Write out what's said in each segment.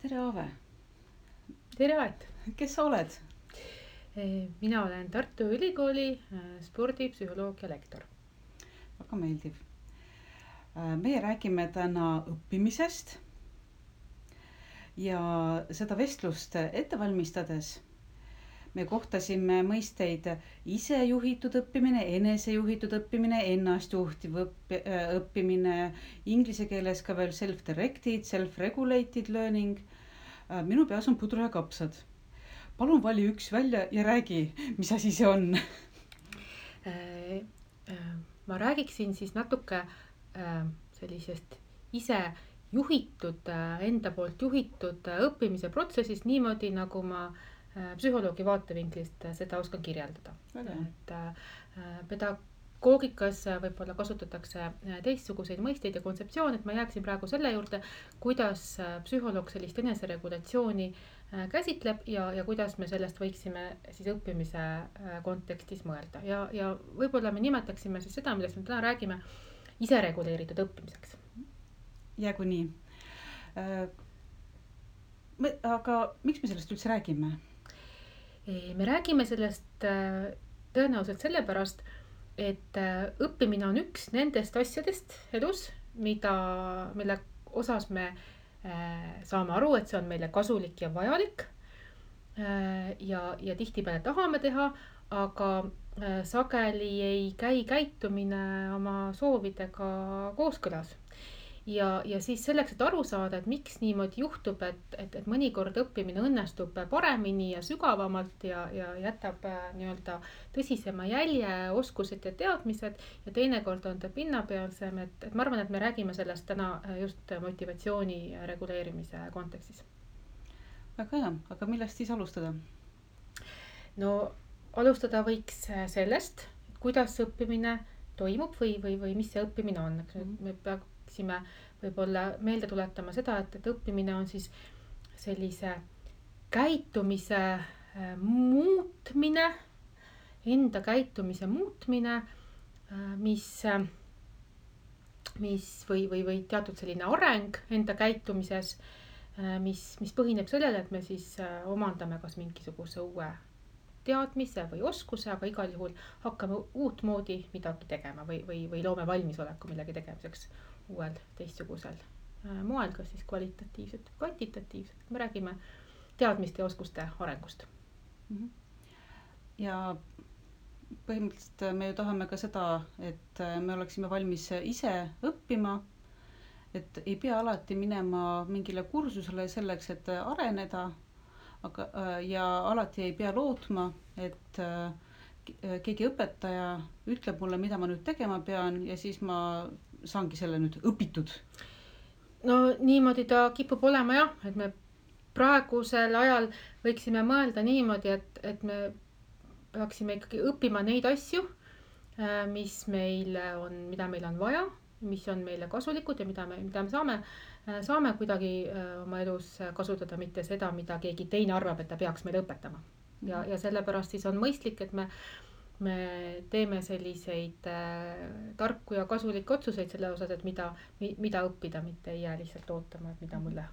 tere, Aave! Tere, Aet! Kes sa oled? Mina olen Tartu Ülikooli spordipsühholoogia lektor. Väga meeldiv. Meie räägime täna õppimisest ja seda vestlust ette valmistades me kohtasime mõisteid isejuhitud õppimine, enesejuhitud õppimine, ennastjuhtiv õppimine, inglise keeles ka veel self-directed, self-regulated learning. Minu peas on pudru ja kapsad. Palun vali üks välja ja räägi, mis asi see on. Ma räägiksin siis natuke sellisest ise juhitud, enda poolt juhitud õppimise protsessist niimoodi, nagu ma psühholoogi vaatevinklist seda oskan kirjeldada. Et pedagoogikas võib-olla kasutatakse teistsuguseid mõisteid ja kontseptsioone, et ma jääksin praegu selle juurde, kuidas psühholoog sellist eneseregulatsiooni käsitleb ja kuidas me sellest võiksime siis õppimise kontekstis mõelda. Ja võib-olla me nimetaksime siis seda, millest me täna räägime, isereguleeritud õppimiseks. Jäägu nii. Aga miks me sellest üldse räägime? Me räägime sellest tõenäoliselt sellepärast, et õppimine on üks nendest asjadest elus, mille osas me saame aru, et see on meile kasulik ja vajalik ja tihtipeale tahame teha, aga sageli ei käi käitumine oma soovidega kooskõlas. Ja siis selleks, et aru saada, et miks niimoodi juhtub, et mõnikord õppimine õnnestub paremini ja sügavamalt ja jätab nii-öelda tõsisema jälje, oskused ja teadmised ja teinekord on ta pinnapealsem, et ma arvan, et me räägime sellest täna just motivatsiooni reguleerimise kontekstis. Väga hea, aga millest siis alustada? No alustada võiks sellest, kuidas õppimine toimub või mis see õppimine on. Me peaksime võib-olla meelde tuletama seda, et õppimine on siis sellise käitumise muutmine, enda käitumise muutmine, mis või teatud selline areng enda käitumises, mis põhineb sellele, et me siis omandame kas mingisuguse uue teadmise või oskuse, aga igal juhul hakkame uut moodi midagi tegema või loome valmisoleku millegi tegemiseks uuel teistsugusel moel, kas siis kvalitatiivselt või kvantitatiivselt. Me räägime teadmiste ja oskuste arengust. Ja põhimõtteliselt me ju tahame ka seda, et me oleksime valmis ise õppima, et ei pea alati minema mingile kursusele selleks, et areneda, ja alati ei pea lootma, et keegi õpetaja ütleb mulle, mida ma nüüd tegema pean ja siis ma saangi selle nüüd õpitud. No niimoodi ta kipub olema jah, et me praegusel ajal võiksime mõelda niimoodi, et me peaksime ikkagi õppima neid asju, mida meil on vaja, mis on meile kasulikud ja mida me saame kuidagi oma elus kasutada, mitte seda, mida keegi teine arvab, et ta peaks meile õpetama. Ja sellepärast siis on mõistlik, et me teeme selliseid tarku ja kasulikke otsuseid selle osas, et mida õppida, mitte ei jää lihtsalt ootama, et mida mulle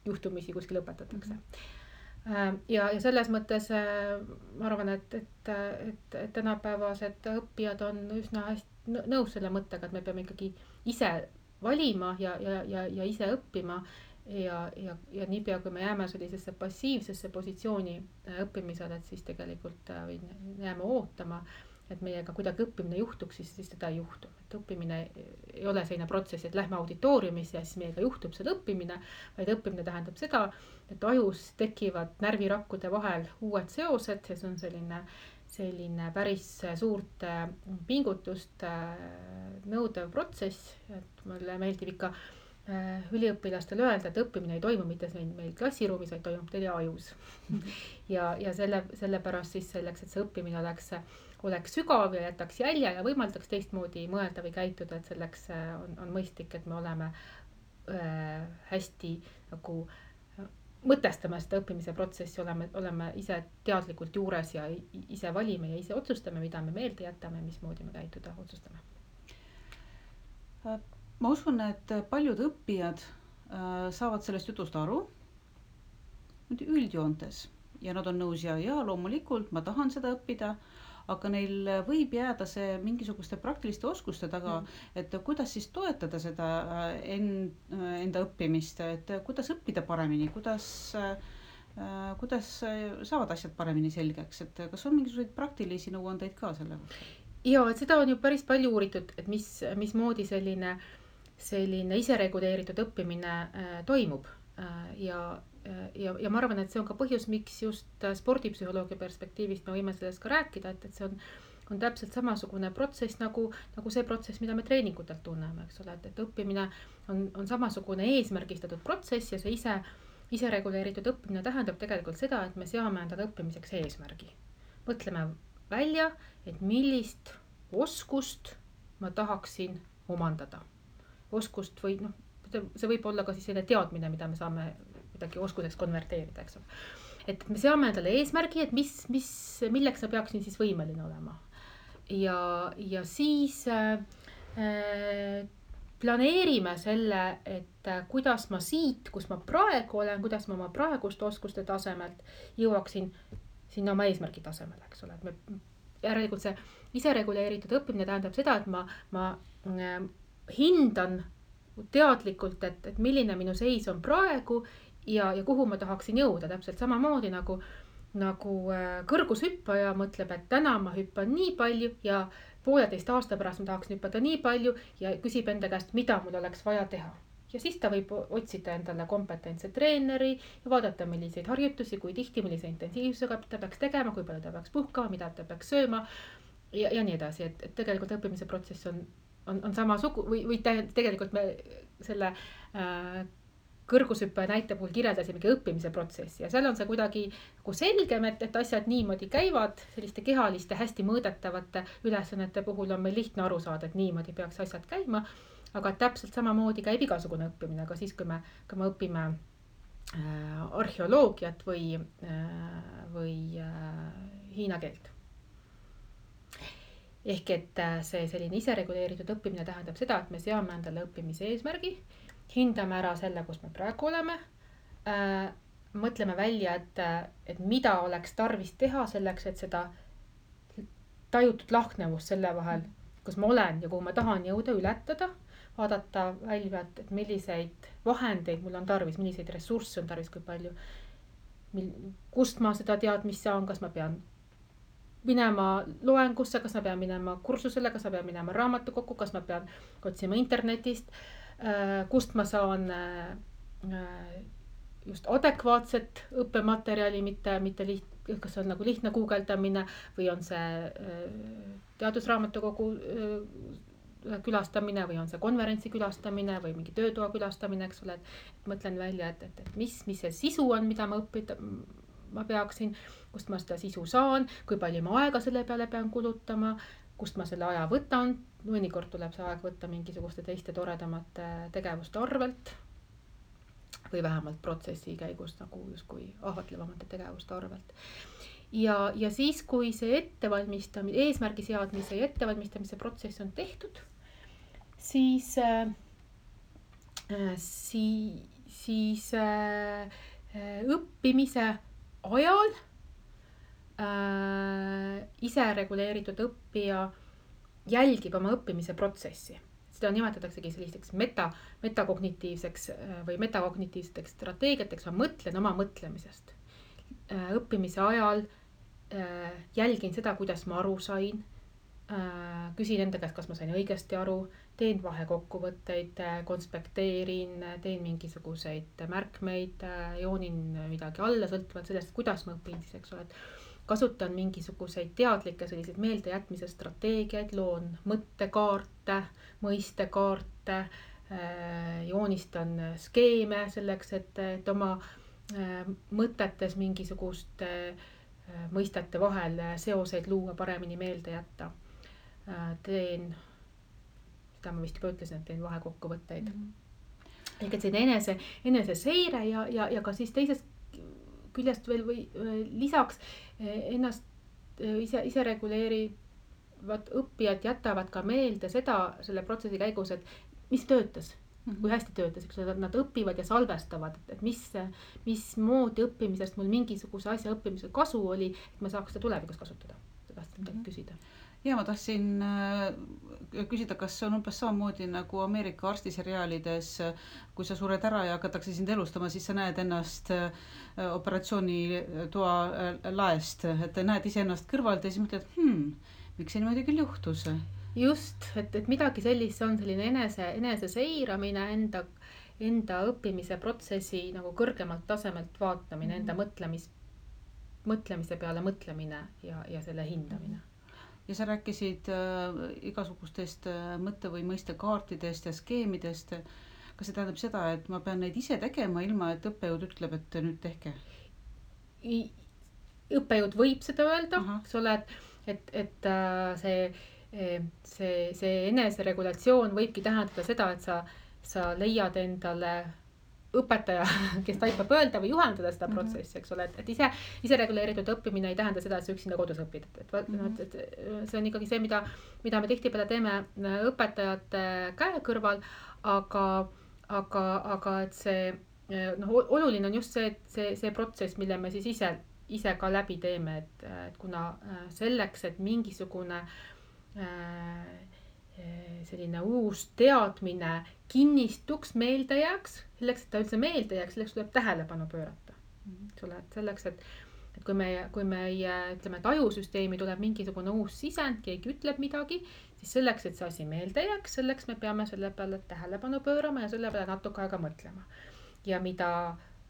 juhtumisi kuskil õpetatakse. Ja selles mõttes ma arvan, et tänapäevased õppijad on üsna hästi nõus selle mõttega, et me peame ikkagi ise valima ja ise õppima ja niipea, kui me jääme sellisesse passiivsesse positsiooni õppimisel, et siis tegelikult jääme ootama, et meiega kuidagi õppimine juhtuks, siis seda ei juhtu. Et õppimine ei ole selline protsess, et lähme auditooriumisse ja siis meiega juhtub seal õppimine, vaid õppimine tähendab seda, et ajus tekivad närvirakkude vahel uued seosed ja see on selline päris suurt pingutust nõudev protsess, et mulle meeldib ikka üliõpilastele öelda, et õppimine ei toimu mitte meil klassiruumis, vaid toimub teie ajus. Ja sellepärast siis selleks, et see õppimine oleks sügav ja jätaks jälje ja võimaldaks teistmoodi mõelda või käituda, et selleks on mõistlik, et me oleme hästi nagu mõtestame seda õppimise protsessi, oleme ise teadlikult juures ja ise valime ja ise otsustame, mida me meelde jätame, mismoodi me käituda otsustame. Ma usun, et paljud õppijad saavad sellest jutust aru üldjoontes ja nad on nõus ja loomulikult ma tahan seda õppida, aga neil võib jääda see mingisuguste praktiliste oskuste taga, et kuidas siis toetada seda enda õppimist, et kuidas õppida paremini, kuidas saavad asjad paremini selgeks, et kas on mingisuguseid praktilisi nõuandeid ka selle kohta? Ja, et seda on ju päris palju uuritud, et mismoodi selline isereguleeritud õppimine toimub. Ja ma arvan, et see on ka põhjus, miks just spordipsühholoogia perspektiivist me võime sellest ka rääkida, et see on täpselt samasugune protsess nagu see protsess, mida me treeningutelt tunneme, eks ole, et õppimine on samasugune eesmärgistatud protsess ja see isereguleeritud õppimine tähendab tegelikult seda, et me seame endale õppimiseks eesmärgi. Mõtleme välja, et millist oskust ma tahaksin omandada. Oskust või see võib olla ka siis selline teadmine, mida me saame midagi oskuseks konverteerida, eks ole. Et me seame endale eesmärgi, et milleks ma peaksin siis võimeline olema. Ja siis planeerime selle, et kuidas ma siit, kus ma praegu olen, kuidas ma oma praeguste oskuste tasemelt jõuaksin sinna oma eesmärgi tasemele, eks ole. Järelikult see isereguleeritud õppimine tähendab seda, et ma hindan teadlikult, et milline minu seis on praegu ja kuhu ma tahaksin jõuda. Täpselt samamoodi nagu kõrgushüppaja mõtleb, et täna ma hüppan nii palju ja 1,5 aasta pärast ma tahaksin hüppada nii palju ja küsib enda käest, mida mul oleks vaja teha. Ja siis ta võib otsida endale kompetentse treeneri ja vaadata, milliseid harjutusi, kui tihti, millise intensiivsusega ta peaks tegema, kui palju ta peaks puhkama, mida ta peaks sööma ja nii edasi. Et tegelikult õppimise protsess on samasugu või tegelikult me selle kõrgushüppaja näite puhul kirjeldasimegi õppimise protsessi ja seal on see kuidagi selgem, et asjad niimoodi käivad, selliste kehaliste hästi mõõdetavate ülesannete puhul on meil lihtne aru saada, et niimoodi peaks asjad käima. Aga täpselt samamoodi käib igasugune õppimine, ka siis, kui me õpime arheoloogiat või hiina keelt. Ehk et see selline isereguleeritud õppimine tähendab seda, et me seame endale õppimise eesmärgi, hindame ära selle, kus me praegu oleme, mõtleme välja, et mida oleks tarvis teha selleks, et seda tajutud lahknevust selle vahel, kus ma olen ja kuhu ma tahan jõuda, ületada, vaadata välja, et milliseid vahendeid mul on tarvis, milliseid ressursse on tarvis, kui palju, kust ma seda teadmist saan, kas ma pean minema loengusse, kas ma pean minema kursusele, kas ma pean minema raamatukokku, kas ma pean otsima internetist, kust ma saan just adekvaatset õppematerjali, mitte kas on nagu lihtne guugeldamine või on see teadusraamatukogu külastamine või on see konverentsi külastamine või mingi töötoa külastamine, eks ole, et mõtlen välja, et mis see sisu on, mida ma õppida ma peaksin, kust ma seda sisu saan, kui palju ma aega selle peale pean kulutama, kust ma selle aja võtan, mõnikord tuleb see aeg võtta mingisuguste teiste toredamate tegevuste arvelt või vähemalt protsessi käigus nagu justkui ahvatlevamate tegevuste arvelt. Ja siis, kui see eesmärgi seadmise ja ettevalmistamise protsess on tehtud, siis õppimise ajal isereguleeritud õppija jälgib oma õppimise protsessi. Seda nimetataksegi selliseks metakognitiivseks või metakognitiivseteks strateegiateks. Ma mõtlen oma mõtlemisest. Õppimise ajal jälgin seda, kuidas ma aru sain. Küsin enda käest, kas ma sain õigesti aru. Teen vahekokkuvõtteid, konspekteerin, teen mingisuguseid märkmeid, joonin midagi alla, sõltuvalt sellest, kuidas ma õpin siis, eks ole. Kasutan mingisuguseid teadlikke selliseid meeldejätmise strateegiaid, loon mõttekaarte, mõistekaarte, joonistan skeeme selleks, et oma mõtetes mingisuguste mõistete vahel seoseid luua, paremini meelde jätta. Teen, seda ma vist juba ütlesin, et teen vahekokkuvõtteid. Ehk et see enese seire ja ka siis teisest küljest veel või lisaks ennast ise reguleerivad õppijad jätavad ka meelde seda selle protsessi käigus, et mis töötas, kui hästi töötas, eks ole, nad õpivad ja salvestavad, et mismoodi õppimisest mul mingisuguse asja õppimisel kasu oli, et ma saaks seda tulevikus kasutada. Sa tahtsid midagi küsida. Ja ma tahtsin küsida, kas on umbes samamoodi nagu Ameerika arstiseriaalides, kui sa sured ära ja hakatakse sind elustama, siis sa näed ennast operatsioonitoa laest, et näed iseennast kõrvalt ja siis mõtled, miks see niimoodi küll juhtus? Just, et midagi sellist on selline enese seiramine, enda õppimise protsessi nagu kõrgemalt tasemelt vaatamine, enda mõtlemise peale mõtlemine ja selle hindamine. Ja sa rääkisid igasugustest mõtte- või mõistekaartidest ja skeemidest. Kas see tähendab seda, et ma pean neid ise tegema, ilma et õppejõud ütleb, et nüüd tehke? Õppejõud võib seda öelda, eks ole, et see eneseregulatsioon võibki tähendada seda, et sa leiad endale õpetaja, kes taipab öelda või juhendada seda protsessi, eks ole, et ise reguleeritud õppimine ei tähenda seda, et sa üksinda kodus õpid. Et see on ikkagi see, mida me tihtipeale teeme õpetajate käe kõrval, aga et see, oluline on just see protsess, mille me siis ise ka läbi teeme, et kuna selleks, et mingisugune selline uus teadmine kinnistuks, meelde jääks, selleks, et ta üldse meelde jääks, selleks tuleb tähelepanu pöörata. Selleks, et kui meie ütleme, et ajusüsteemi tuleb mingisugune uus sisend, keegi ütleb midagi, siis selleks, et see asi meelde jääks, selleks me peame selle peale tähelepanu pöörama ja selle peale natuke aega mõtlema. Ja mida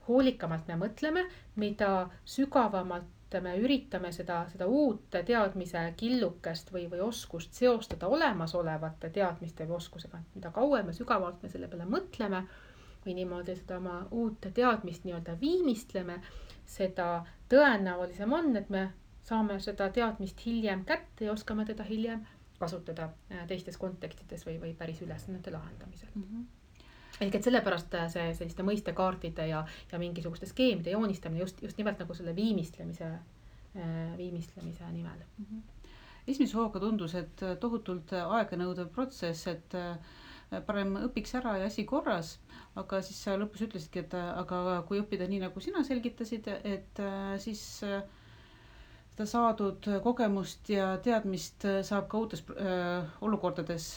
hoolikamalt me mõtleme, mida sügavamalt me üritame seda uut teadmise killukest või oskust seostada olemasolevate teadmiste või oskusega. Mida kauem me sügavalt me selle peale mõtleme või niimoodi seda oma uut teadmist nii-öelda viimistleme, seda tõenäolisem on, et me saame seda teadmist hiljem kätte ja oskame teda hiljem kasutada teistes kontekstides või päris ülesannete lahendamisel. Ehk et sellepärast selliste mõistekaartide ja mingisuguste skeemide joonistamine just nimelt nagu selle viimistlemise nimel. Esimese hooga tundus, et tohutult aeganõudev protsess, et parem õpiks ära ja asi korras, aga siis sa lõpus ütlesidki, et aga kui õppida nii, nagu sina selgitasid, et siis seda saadud kogemust ja teadmist saab ka uutes olukordades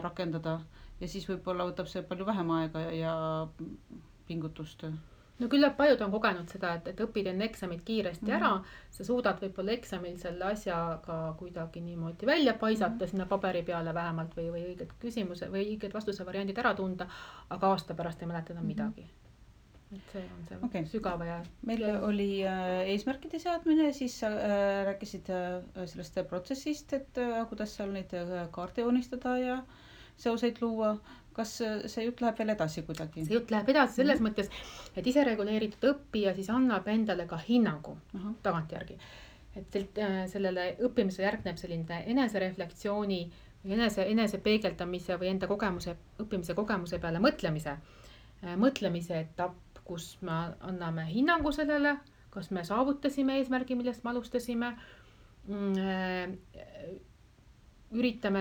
rakendada. Ja siis võib-olla võtab see palju vähem aega ja pingutust. No küllap paljud on kogenud seda, et õpid enne eksamit kiiresti ära, sa suudad võib-olla eksamil selle asja ka kuidagi niimoodi välja paisata sinna paberi peale vähemalt või õiged küsimuse või õiged vastuse variandid ära tunda, aga aasta pärast ei mäleta enam midagi. Et see on see sügava ja... Meil oli eesmärkide seadmine, siis sa rääkisid sellest protsessist, et kuidas seal neid kaarte joonistada ja seoseid luua. Kas see jutt läheb veel edasi kuidagi? See jutt läheb edasi selles mõttes, et ise reguleeritud õppija siis annab endale ka hinnangu tagantjärgi. Et sellele õppimisele järgneb selline enesereflektsiooni või enese peegeldamise või enda õppimise kogemuse peale mõtlemise etapp, kus me anname hinnangu sellele, kas me saavutasime eesmärgi, millest me alustasime, üritame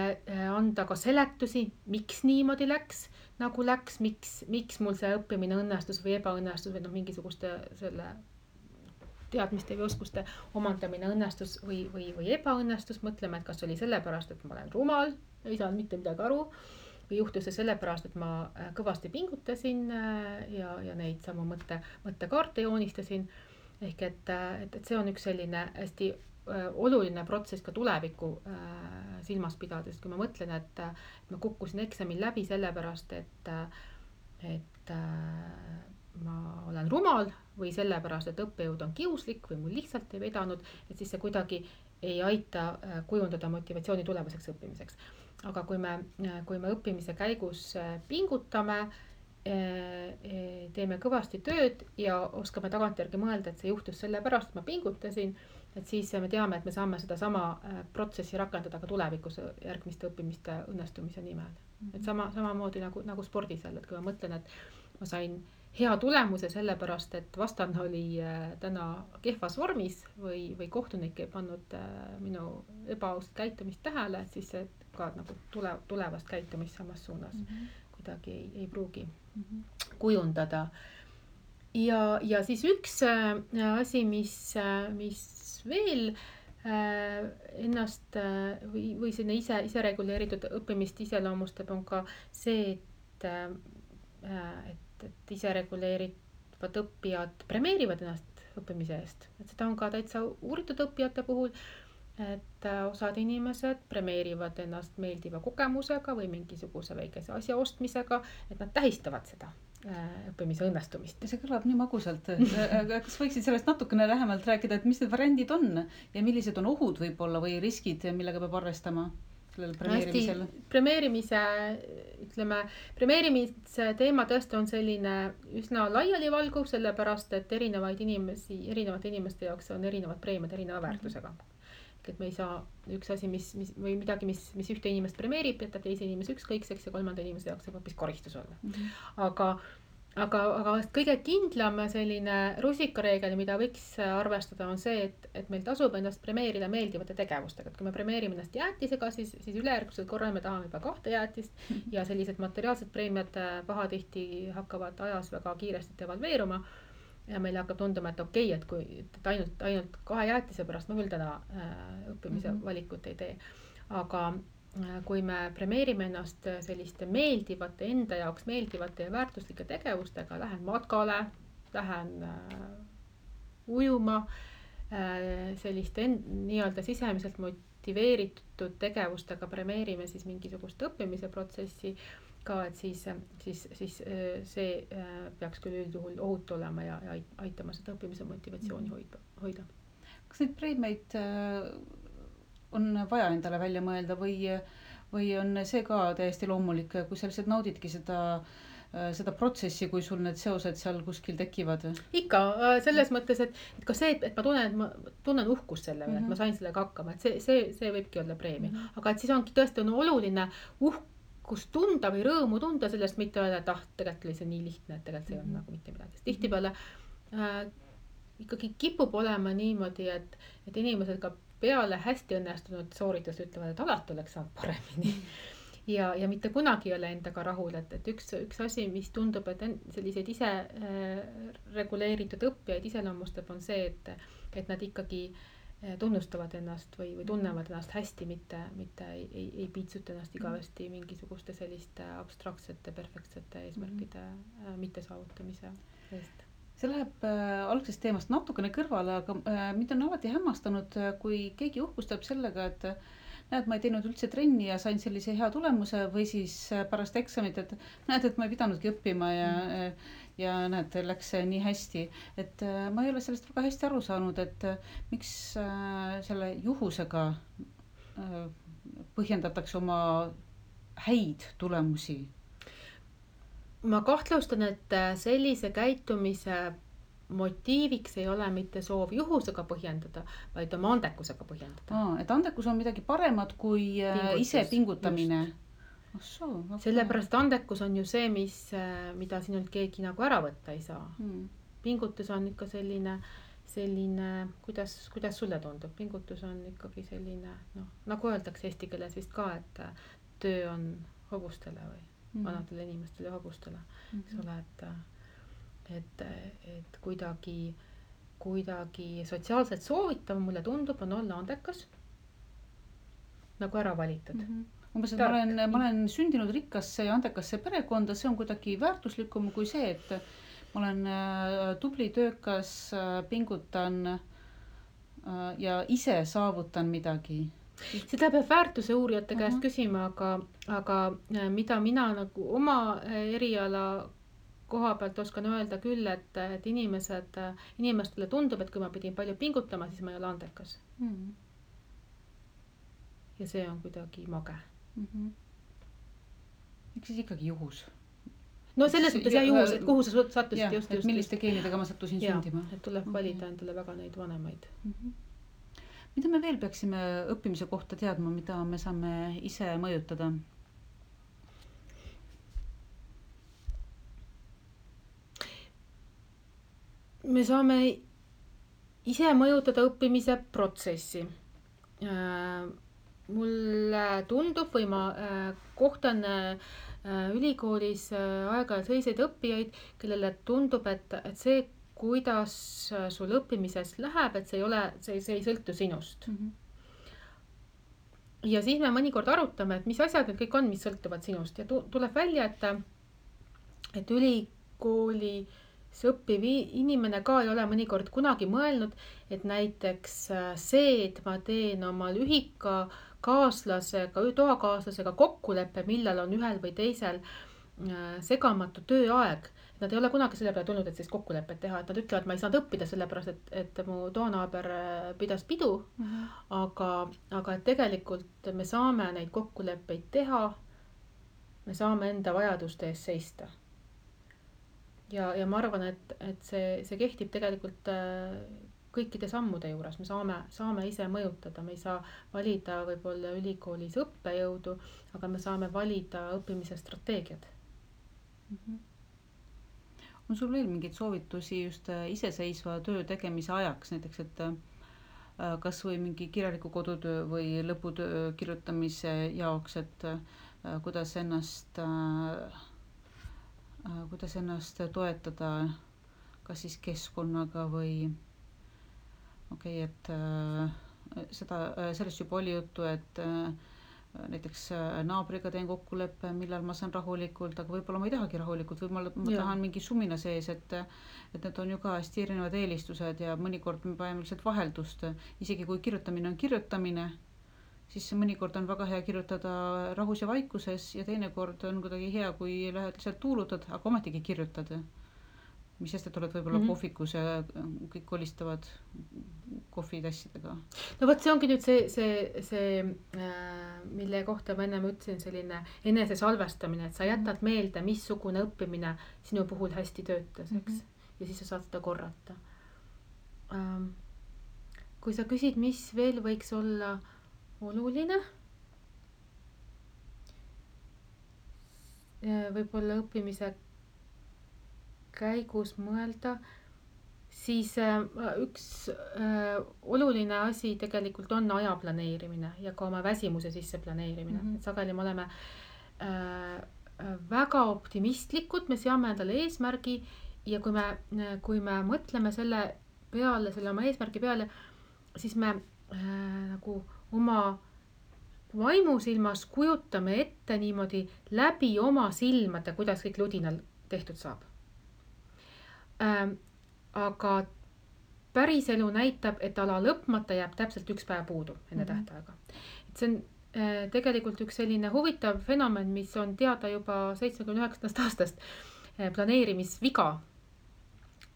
anda ka seletusi, miks niimoodi läks, nagu läks, miks mul see õppimine õnnestus või ebaõnnestus või mingisuguste selle teadmiste või oskuste omandamine õnnestus või ebaõnnestus. Mõtleme, et kas oli sellepärast, et ma olen rumal, ei saanud mitte midagi aru või juhtus see sellepärast, et ma kõvasti pingutasin ja neid samu mõttekaarte joonistasin. Ehk et see on üks selline hästi oluline protsess ka tuleviku silmas pidades, kui ma mõtlen, et ma kukkusin eksamil läbi sellepärast, et ma olen rumal või sellepärast, et õppejõud on kiuslik või mul lihtsalt ei vedanud, et siis see kuidagi ei aita kujundada motivatsiooni tulevaseks õppimiseks. Aga kui me õppimise käigus pingutame, teeme kõvasti tööd ja oskame tagantjärgi mõelda, et see juhtus sellepärast, et ma pingutasin, et siis me teame, et me saame seda sama protsessi rakendada ka tulevikus järgmiste õppimiste õnnestumise nimel. Et samamoodi nagu spordis jälle, et kui ma mõtlen, et ma sain hea tulemuse sellepärast, et vastane oli täna kehvas vormis või kohtunik ei pannud minu ebaausat käitumist tähele, et siis see ka nagu tulevast käitumist samas suunas midagi ei pruugi kujundada. Ja siis üks asi, mis veel ennast või selline ise reguleeritud õppimist iseloomustab, on ka see, et ise reguleerivad õppijad premeerivad ennast õppimise eest. Et seda on ka täitsa uuritud õppijate puhul, et osad inimesed premeerivad ennast meeldiva kogemusega või mingisuguse väikese asja ostmisega, et nad tähistavad seda õppimise õnnestumist. See kõlab nii magusalt. Kas võiksid sellest natukene lähemalt rääkida, et mis need variandid on ja millised on ohud võib-olla või riskid, millega peab arvestama sellel premeerimisel? Premeerimise teema tõesti on selline üsna laialivalguv, sellepärast, et erinevate inimeste jaoks on erinevad preemiad erineva väärtusega. Et me ei saa üks asi, või midagi, mis ühte inimest premeerib, jätab teise inimese ükskõikseks ja kolmanda inimese jaoks saab hoopis koristus olla. Aga kõige kindlam selline rusikareegel, mida võiks arvestada, on see, et meil tasub ennast premeerida meeldivate tegevustega. Et kui me premeerime ennast jäätisega, siis ülejärgmisel korral me tahame juba 2 jäätist ja sellised materiaalsed preemiad pahatihti hakkavad ajas väga kiiresti devalveeruma. Ja meile hakkab tunduma, et okei, et kui ainult 2 jäätise pärast ma küll täna õppimise valikut ei tee. Aga kui me premeerime ennast selliste meeldivate, enda jaoks meeldivate ja väärtuslike tegevustega, lähen matkale, lähen ujuma, selliste nii-öelda sisemiselt motiveeritud tegevustega premeerime siis mingisugust õppimise protsessi ka, et siis see peaks küll üldjuhul ohutu olema ja aitama seda õppimise motivatsiooni hoida. Kas neid preemiaid on vaja endale välja mõelda või on see ka täiesti loomulik, kui sa lihtsalt naudidki seda protsessi, kui sul need seosed seal kuskil tekivad? Ikka, selles mõttes, et ka see, et ma tunnen uhkust selle üle, et ma sain sellega hakkama, et see võibki olla preemia. Aga et siis ongi tõesti oluline uhkust tunda või rõõmu tunda sellest, mitte öelda, et tegelikult oli see nii lihtne, et tegelikult see on nagu mitte midagi. Tihtipeale ikkagi kipub olema niimoodi, et inimesed ka peale hästi õnnestunud sooritust ütlevad, et alati oleks saanud paremini. Ja mitte kunagi ei ole endaga rahul, et üks asi, mis tundub, et selliseid ise reguleeritud õppijaid iseloomustab, on see, et nad ikkagi tunnustavad ennast või tunnevad ennast hästi, mitte ei piitsuta ennast igavesti mingisuguste selliste abstraktsete, perfektsete eesmärkide mittesaavutamise eest. See läheb algsest teemast natukene kõrvale, aga mind on alati hämmastanud, kui keegi uhkustab sellega, et näed, ma ei teinud üldse trenni ja sain sellise hea tulemuse või siis pärast eksamit, et näed, et ma ei pidanudki õppima ja näed, läks nii hästi. Et ma ei ole sellest väga hästi aru saanud, et miks selle juhusega põhjendatakse oma häid tulemusi. Ma kahtlustan, et sellise käitumise motiiviks ei ole mitte soov juhusega põhjendada, vaid oma andekusega põhjendada. Et andekus on midagi paremat kui ise pingutamine. Sellepärast andekus on ju see, mida sinult keegi nagu ära võtta ei saa. Pingutus on ikka selline, kuidas sulle tundub? Pingutus on ikkagi selline, nagu öeldakse eesti keeles vist ka, et töö on hobustele või vanadele inimestele ja hobustele. Eks ole, et kuidagi sotsiaalselt soovitav mulle tundub, on olla andekas, nagu ära valitud. Umbes, et ma olen sündinud rikkasse ja andekasse perekonda, see on kuidagi väärtuslikum kui see, et ma olen tubli, töökas, pingutan ja ise saavutan midagi. Seda peab väärtuse uurijate käest küsima, aga mida mina nagu oma eriala koha pealt oskan öelda küll, et inimestele tundub, et kui ma pidin palju pingutama, siis ma ei ole andekas. Ja see on kuidagi mage. Eks siis ikkagi juhus. No selles mõttes juhus, et kuhu sa sattusid just. Milliste geenidega ma sattusin sündima. Et tuleb valida endale väga neid vanemaid. Mida me veel peaksime õppimise kohta teadma, mida me saame ise mõjutada? Me saame ise mõjutada õppimise protsessi. Mulle tundub või ma kohtan ülikoolis aeg-ajalt selliseid õppijaid, kellele tundub, et see, kuidas sul õppimises läheb, et see ei sõltu sinust. Ja siis me mõnikord arutame, et mis asjad need kõik on, mis sõltuvad sinust ja tuleb välja, et ülikoolis õppiv inimene ka ei ole mõnikord kunagi mõelnud, et näiteks see, et ma teen oma toakaaslasega kokkuleppe, millal on ühel või teisel segamatu tööaeg. Nad ei ole kunagi selle peale tulnud, et sellist kokkulepet teha, et nad ütlevad, ma ei saanud õppida sellepärast, et mu toonaaber pidas pidu, aga et tegelikult me saame neid kokkuleppeid teha, me saame enda vajaduste eest seista. Ja ma arvan, et see kehtib tegelikult kõikide sammude juures, me saame ise mõjutada, me ei saa valida võib-olla ülikoolis õppejõudu, aga me saame valida õppimise strateegiad. On sul veel mingeid soovitusi just iseseisva töö tegemise ajaks, näiteks, et kas või mingi kirjaliku kodutöö või lõputöö kirjutamise jaoks, et kuidas ennast toetada kas siis keskkonnaga või et sellest juba oli juttu, et näiteks naabriga teen kokkuleppe, millal ma saan rahulikult, aga võib-olla ma ei tahagi rahulikult, või ma tahan mingi sumina sees, et need on ju ka hästi erinevad eelistused ja mõnikord me paneme lihtsalt vaheldust, isegi kui kirjutamine on kirjutamine, siis mõnikord on väga hea kirjutada rahus ja vaikuses ja teinekord on kuidagi hea, kui lähed lihtsalt tuulutad, aga ometigi kirjutad. Mis sest, et oled võib-olla kohvikus ja kõik kolistavad kohvitassidega. No võt, see ongi nüüd see mille kohta ma ennem ütlesin, selline enese salvestamine, et sa jätad meelde, missugune õppimine sinu puhul hästi töötas, eks? Ja siis sa saad seda korrata. Kui sa küsid, mis veel võiks olla oluline, võib-olla õppimise käigus mõelda, siis üks oluline asi tegelikult on aja planeerimine ja ka oma väsimuse sisse planeerimine. Et sageli me oleme väga optimistlikud, me seame endale eesmärgi ja kui me mõtleme selle oma eesmärgi peale, siis me nagu oma vaimusilmas kujutame ette niimoodi läbi oma silmade, kuidas kõik ludinal tehtud saab. Aga päris elu näitab, et ala lõpmata jääb täpselt üks päev puudu enne tähtaega. Et see on tegelikult üks selline huvitav fenomen, mis on teada juba 79. aastast, planeerimisviga,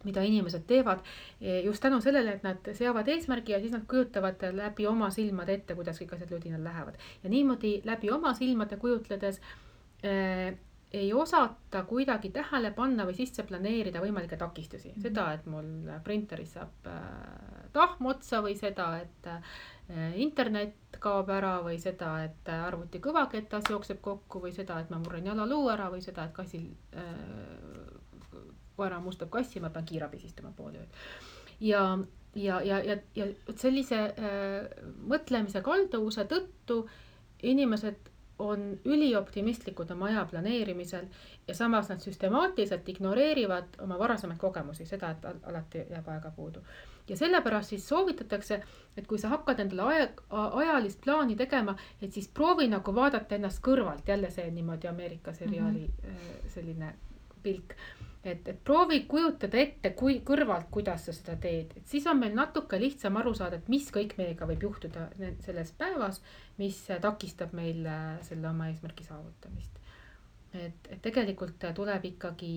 mida inimesed teevad just tänu sellele, et nad seavad eesmärgi ja siis nad kujutavad läbi oma silmade ette, kuidas kõik asjad ludinal lähevad. Ja niimoodi läbi oma silmade kujutledes ei osata kuidagi tähele panna või sisse planeerida võimalikke takistusi. Seda, et mul printeris saab tahm otsa või seda, et internet kaob ära või seda, et arvuti kõvaketas jookseb kokku või seda, et ma murren jalaluu ära või seda, et kassil koera mustab kassi, ma pean kiirabi istuma pool ööd. Ja sellise mõtlemise kalduvuse tõttu inimesed on ülioptimistlikud oma aja planeerimisel ja samas nad süstemaatiliselt ignoreerivad oma varasemaid kogemusi, seda, et alati jääb aega puudu. Ja sellepärast siis soovitatakse, et kui sa hakkad endale ajalist plaani tegema, et siis proovi nagu vaadata ennast kõrvalt, jälle see niimoodi Ameerika seriaali selline pilk. Et proovi kujutada ette kõrvalt, kuidas sa seda teed. Et siis on meil natuke lihtsam aru saada, et mis kõik meiega võib juhtuda selles päevas, mis takistab meil selle oma eesmärgi saavutamist. Et tegelikult tuleb ikkagi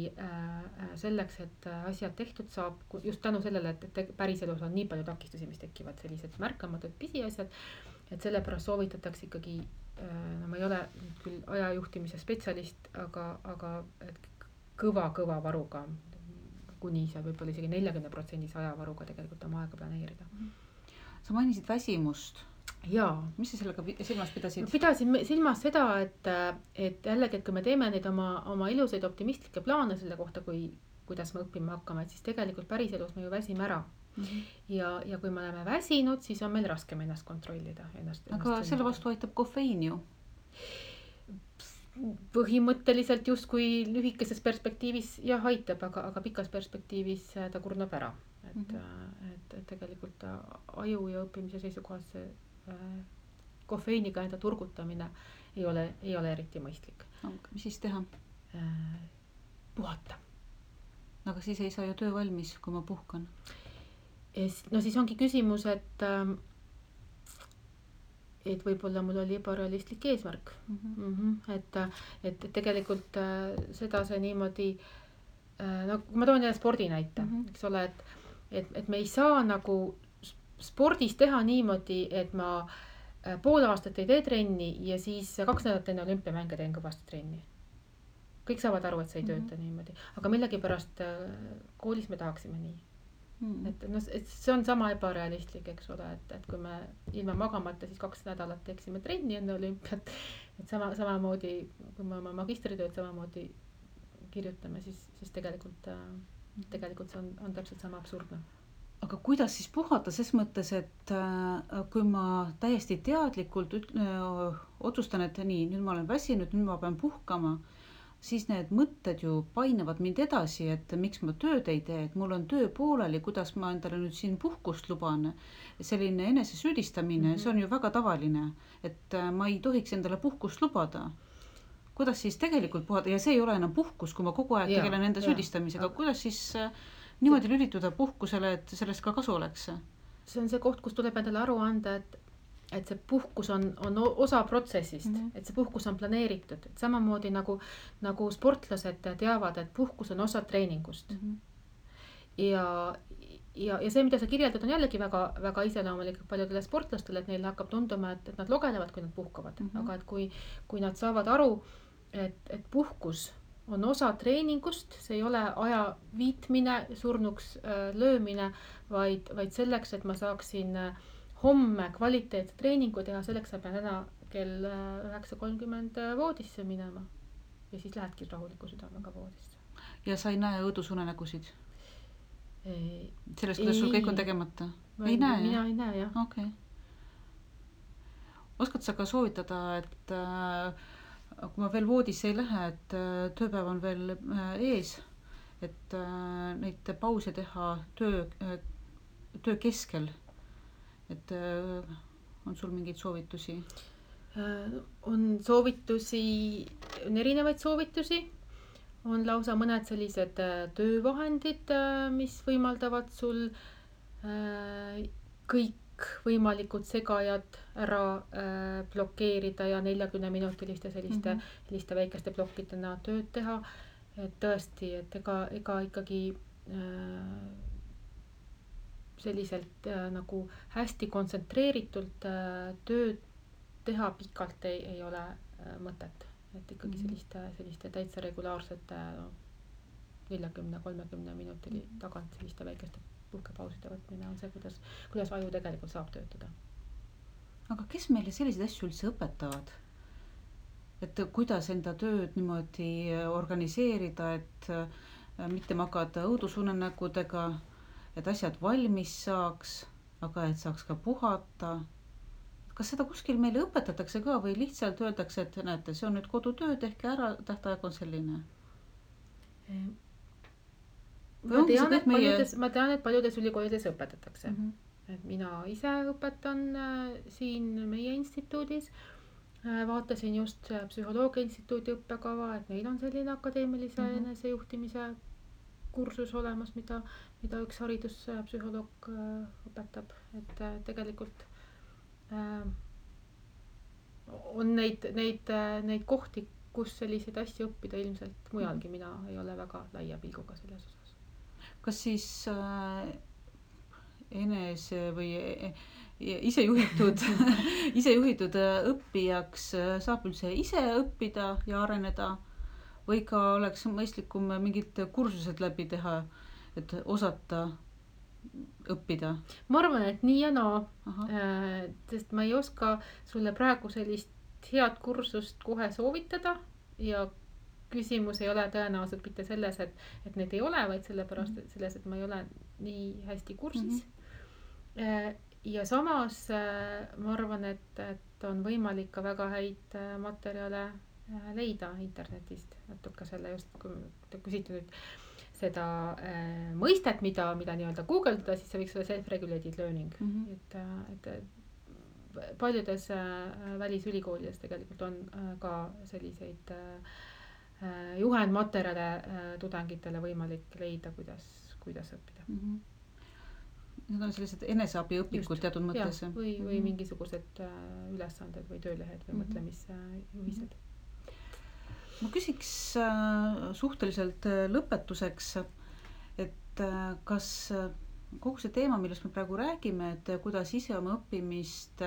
selleks, et asjad tehtud saab, just tänu sellele, et päris elus on nii palju takistusi, mis tekivad sellised märkamatud pisiasjad, et sellepärast soovitatakse ikkagi, ma ei ole küll ajajuhtimise spetsialist, aga kõva varuga, kuni seal võib-olla isegi 40% ajavaruga tegelikult oma aega planeerida. Sa mainisid väsimust. Jaa. Mis sa sellega silmas pidasid? Pidasin silmas seda, et jällegi, et kui me teeme neid oma ilusaid optimistlikke plaane selle kohta, kuidas me õppima hakkame, et siis tegelikult päris elus me ju väsime ära. Ja kui me oleme väsinud, siis on meil raskem ennast kontrollida. Aga selle vastu aitab kofeiin ju. põhimõtteliselt justkui lühikeses perspektiivis jah aitab, aga pikas perspektiivis ta kurnab ära. Et tegelikult aju ja õppimise seisukohast see kofeiiniga enda turgutamine ei ole eriti mõistlik. Mis siis teha? Puhata. Aga siis ei saa ju töö valmis, kui ma puhkan. No siis ongi küsimus, et võib-olla mul oli ebarealistlik eesmärk. Et tegelikult seda see niimoodi, no kui ma toon jälle spordi näite, eks ole, et me ei saa nagu spordis teha niimoodi, et ma pool aastat ei tee trenni ja siis 2 nädalat enne olümpiamänge teen kõvasti trenni. Kõik saavad aru, et see ei tööta niimoodi, aga millegipärast koolis me tahaksime nii. Et see on sama ebarealistlik, eks ole, et kui me ilma magamata siis 2 nädalat teeksime trenni enne olümpiat, et samamoodi, kui me oma magistritööd samamoodi kirjutame, siis tegelikult see on täpselt sama absurdne. Aga kuidas siis puhata ses mõttes, et kui ma täiesti teadlikult otsustan, et nii, nüüd ma olen väsinud, nüüd ma pean puhkama, siis need mõtted ju painevad mind edasi, et miks ma tööd ei tee, et mul on töö pooleli, kuidas ma endale nüüd siin puhkust luban. Selline enesesüüdistamine, see on ju väga tavaline, et ma ei tohiks endale puhkust lubada. Kuidas siis tegelikult puhata, ja see ei ole enam puhkus, kui ma kogu aeg tegelen enda süüdistamisega, kuidas siis niimoodi lülituda puhkusele, et sellest ka kasu oleks? See on see koht, kus tuleb endale aru anda, et see puhkus on osa protsessist, et see puhkus on planeeritud, et samamoodi nagu sportlased teavad, et puhkus on osa treeningust. Ja see, mida sa kirjeldad, on jällegi väga, väga iseloomulik paljudele sportlastele, et neile hakkab tunduma, et nad logelevad, kui nad puhkavad. Aga et kui nad saavad aru, et puhkus on osa treeningust, see ei ole aja viitmine, surnuks löömine, vaid selleks, et ma saaksin homme kvaliteetse treeningu teha, selleks ma pean täna kell 9:30 voodisse minema. Ja siis lähedki rahuliku südamega voodisse. Ja sa ei näe õudusunenägusid? Sellest, kuidas sul kõik on tegemata? Ei näe? Mina ei näe, jah. Okay. Oskad sa ka soovitada, et kui ma veel voodisse ei lähe, et tööpäev on veel ees, et neid pause teha töö keskel, et on sul mingeid soovitusi? On soovitusi, on erinevaid soovitusi, on lausa mõned sellised töövahendid, mis võimaldavad sul kõik võimalikud segajad ära blokeerida ja 40-minutiliste selliste väikeste plokkidena tööd teha. Et tõesti, et ega ikkagi selliselt nagu hästi kontsentreeritult tööd teha pikalt ei ole mõtet. Et ikkagi selliste täitsa regulaarsete 40-30 minutili tagant selliste väikeste puhkepauside võtmine on see, kuidas aju tegelikult saab töötada. Aga kes meile selliseid asju üldse õpetavad? Et kuidas enda tööd niimoodi organiseerida, et mitte magada õudusunenägudega, et asjad valmis saaks, aga et saaks ka puhata. Kas seda kuskil meile õpetatakse ka või lihtsalt öeldakse, et näete, see on nüüd kodutöö, tehke ära, tähtaeg on selline? Ma tean, et paljudes ülikoolides õpetatakse. Et mina ise õpetan siin meie instituudis. Vaatasin just psühholoogia instituudi õppekava, et neil on selline akadeemilise enesejuhtimise kursus olemas, mida üks hariduspsühholoog õpetab. Et tegelikult on neid kohti, kus selliseid asju õppida ilmselt mujalgi. Mina ei ole väga laia pilguga selles osas. Kas siis enese või isejuhitud õppijaks saab üldse ise õppida ja areneda või ka oleks mõistlikum mingid kursused läbi teha, et osata õppida? Ma arvan, et nii ja naa, sest ma ei oska sulle praegu sellist head kursust kohe soovitada ja küsimus ei ole tõenäoliselt mitte selles, et neid ei ole, vaid sellepärast et selles, et ma ei ole nii hästi kursis. Ja samas ma arvan, et on võimalik ka väga häid materjale leida internetist natuke selle just, kui te küsite nüüd seda mõistet, mida nii-öelda guugeldada, siis see võiks olla self-regulated learning. Et paljudes välisülikoolides tegelikult on ka selliseid juhendmaterjale tudengitele võimalik leida, kuidas õppida. Need on sellised eneseabiõpikud teatud mõttes. Või mingisugused ülesanded või töölehed või mõtlemisjuhised. Ma küsiks suhteliselt lõpetuseks, et kas kogu see teema, millest me praegu räägime, et kuidas ise oma õppimist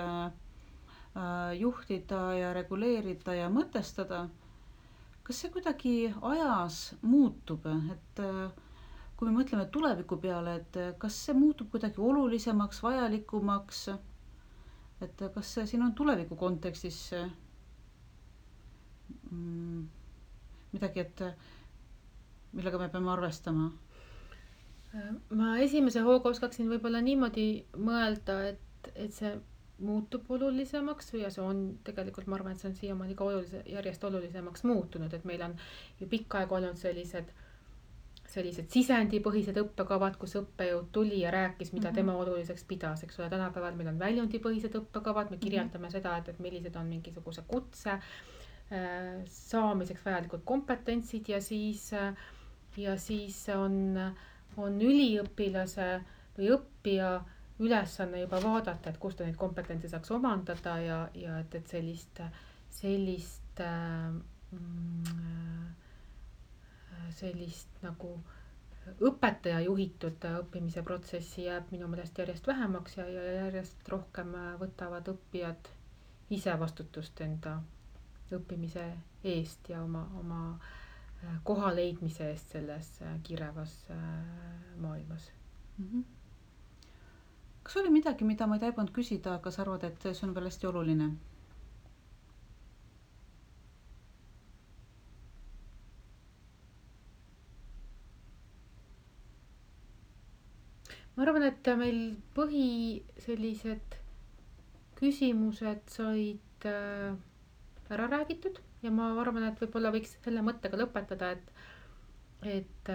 juhtida ja reguleerida ja mõtestada, kas see kuidagi ajas muutub, et kui me mõtleme tuleviku peale, et kas see muutub kuidagi olulisemaks, vajalikumaks, et kas see siin on tuleviku kontekstis midagi, et millega me peame arvestama? Ma esimese hooga oskaksin võib-olla niimoodi mõelda, et see muutub olulisemaks ja see on tegelikult, ma arvan, et see on siiamaani ka järjest olulisemaks muutunud, et meil on ju pikka aega olnud sellised sisendipõhised õppekavad, kus õppejõud tuli ja rääkis, mida tema oluliseks pidas, eks ole. Tänapäeval meil on väljundipõhised õppekavad, me kirjeldame seda, et millised on mingisuguse kutse saamiseks vajalikud kompetentsid ja siis on üliõpilase või õppija ülesanne juba vaadata, et kust ta neid kompetentse saaks omandada ja et sellist nagu õpetaja juhitud õppimise protsessi jääb minu meelest järjest vähemaks ja järjest rohkem võtavad õppijad ise vastutust enda õppimise eest ja oma koha leidmise eest selles kirevas maailmas. Kas oli midagi, mida ma ei taibanud küsida, aga sa arvad, et see on veel hästi oluline? Ma arvan, et meil sellised küsimused said ära räägitud ja ma arvan, et võib-olla võiks selle mõttega lõpetada, et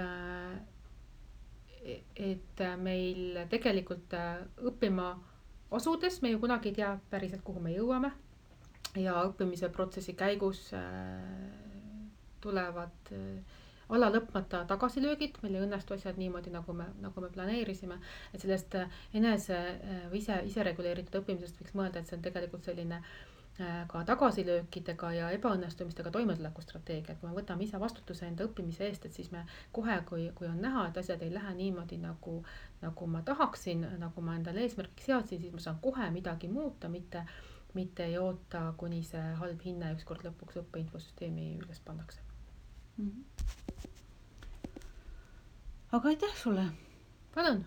meil tegelikult õppima asudes me ju kunagi ei tea päriselt, kuhu me jõuame ja õppimise protsessi käigus tulevad ala lõpmata tagasilöögid, meil ei õnnestu asjad niimoodi, nagu me planeerisime, et sellest ise reguleeritud õppimisest võiks mõelda, et see on tegelikult selline ka tagasilöökidega ja ebaõnnestumistega toimetuleku strateegia, et kui me võtame ise vastutuse enda õppimise eest, et siis me kohe, kui on näha, et asjad ei lähe niimoodi, nagu ma tahaksin, nagu ma endale eesmärgiks seadsin, siis ma saan kohe midagi muuta, mitte ei oota, kuni see halb hinne ükskord lõpuks õppeinfosüsteemi üles pannakse. Aga aitäh sulle! Palun!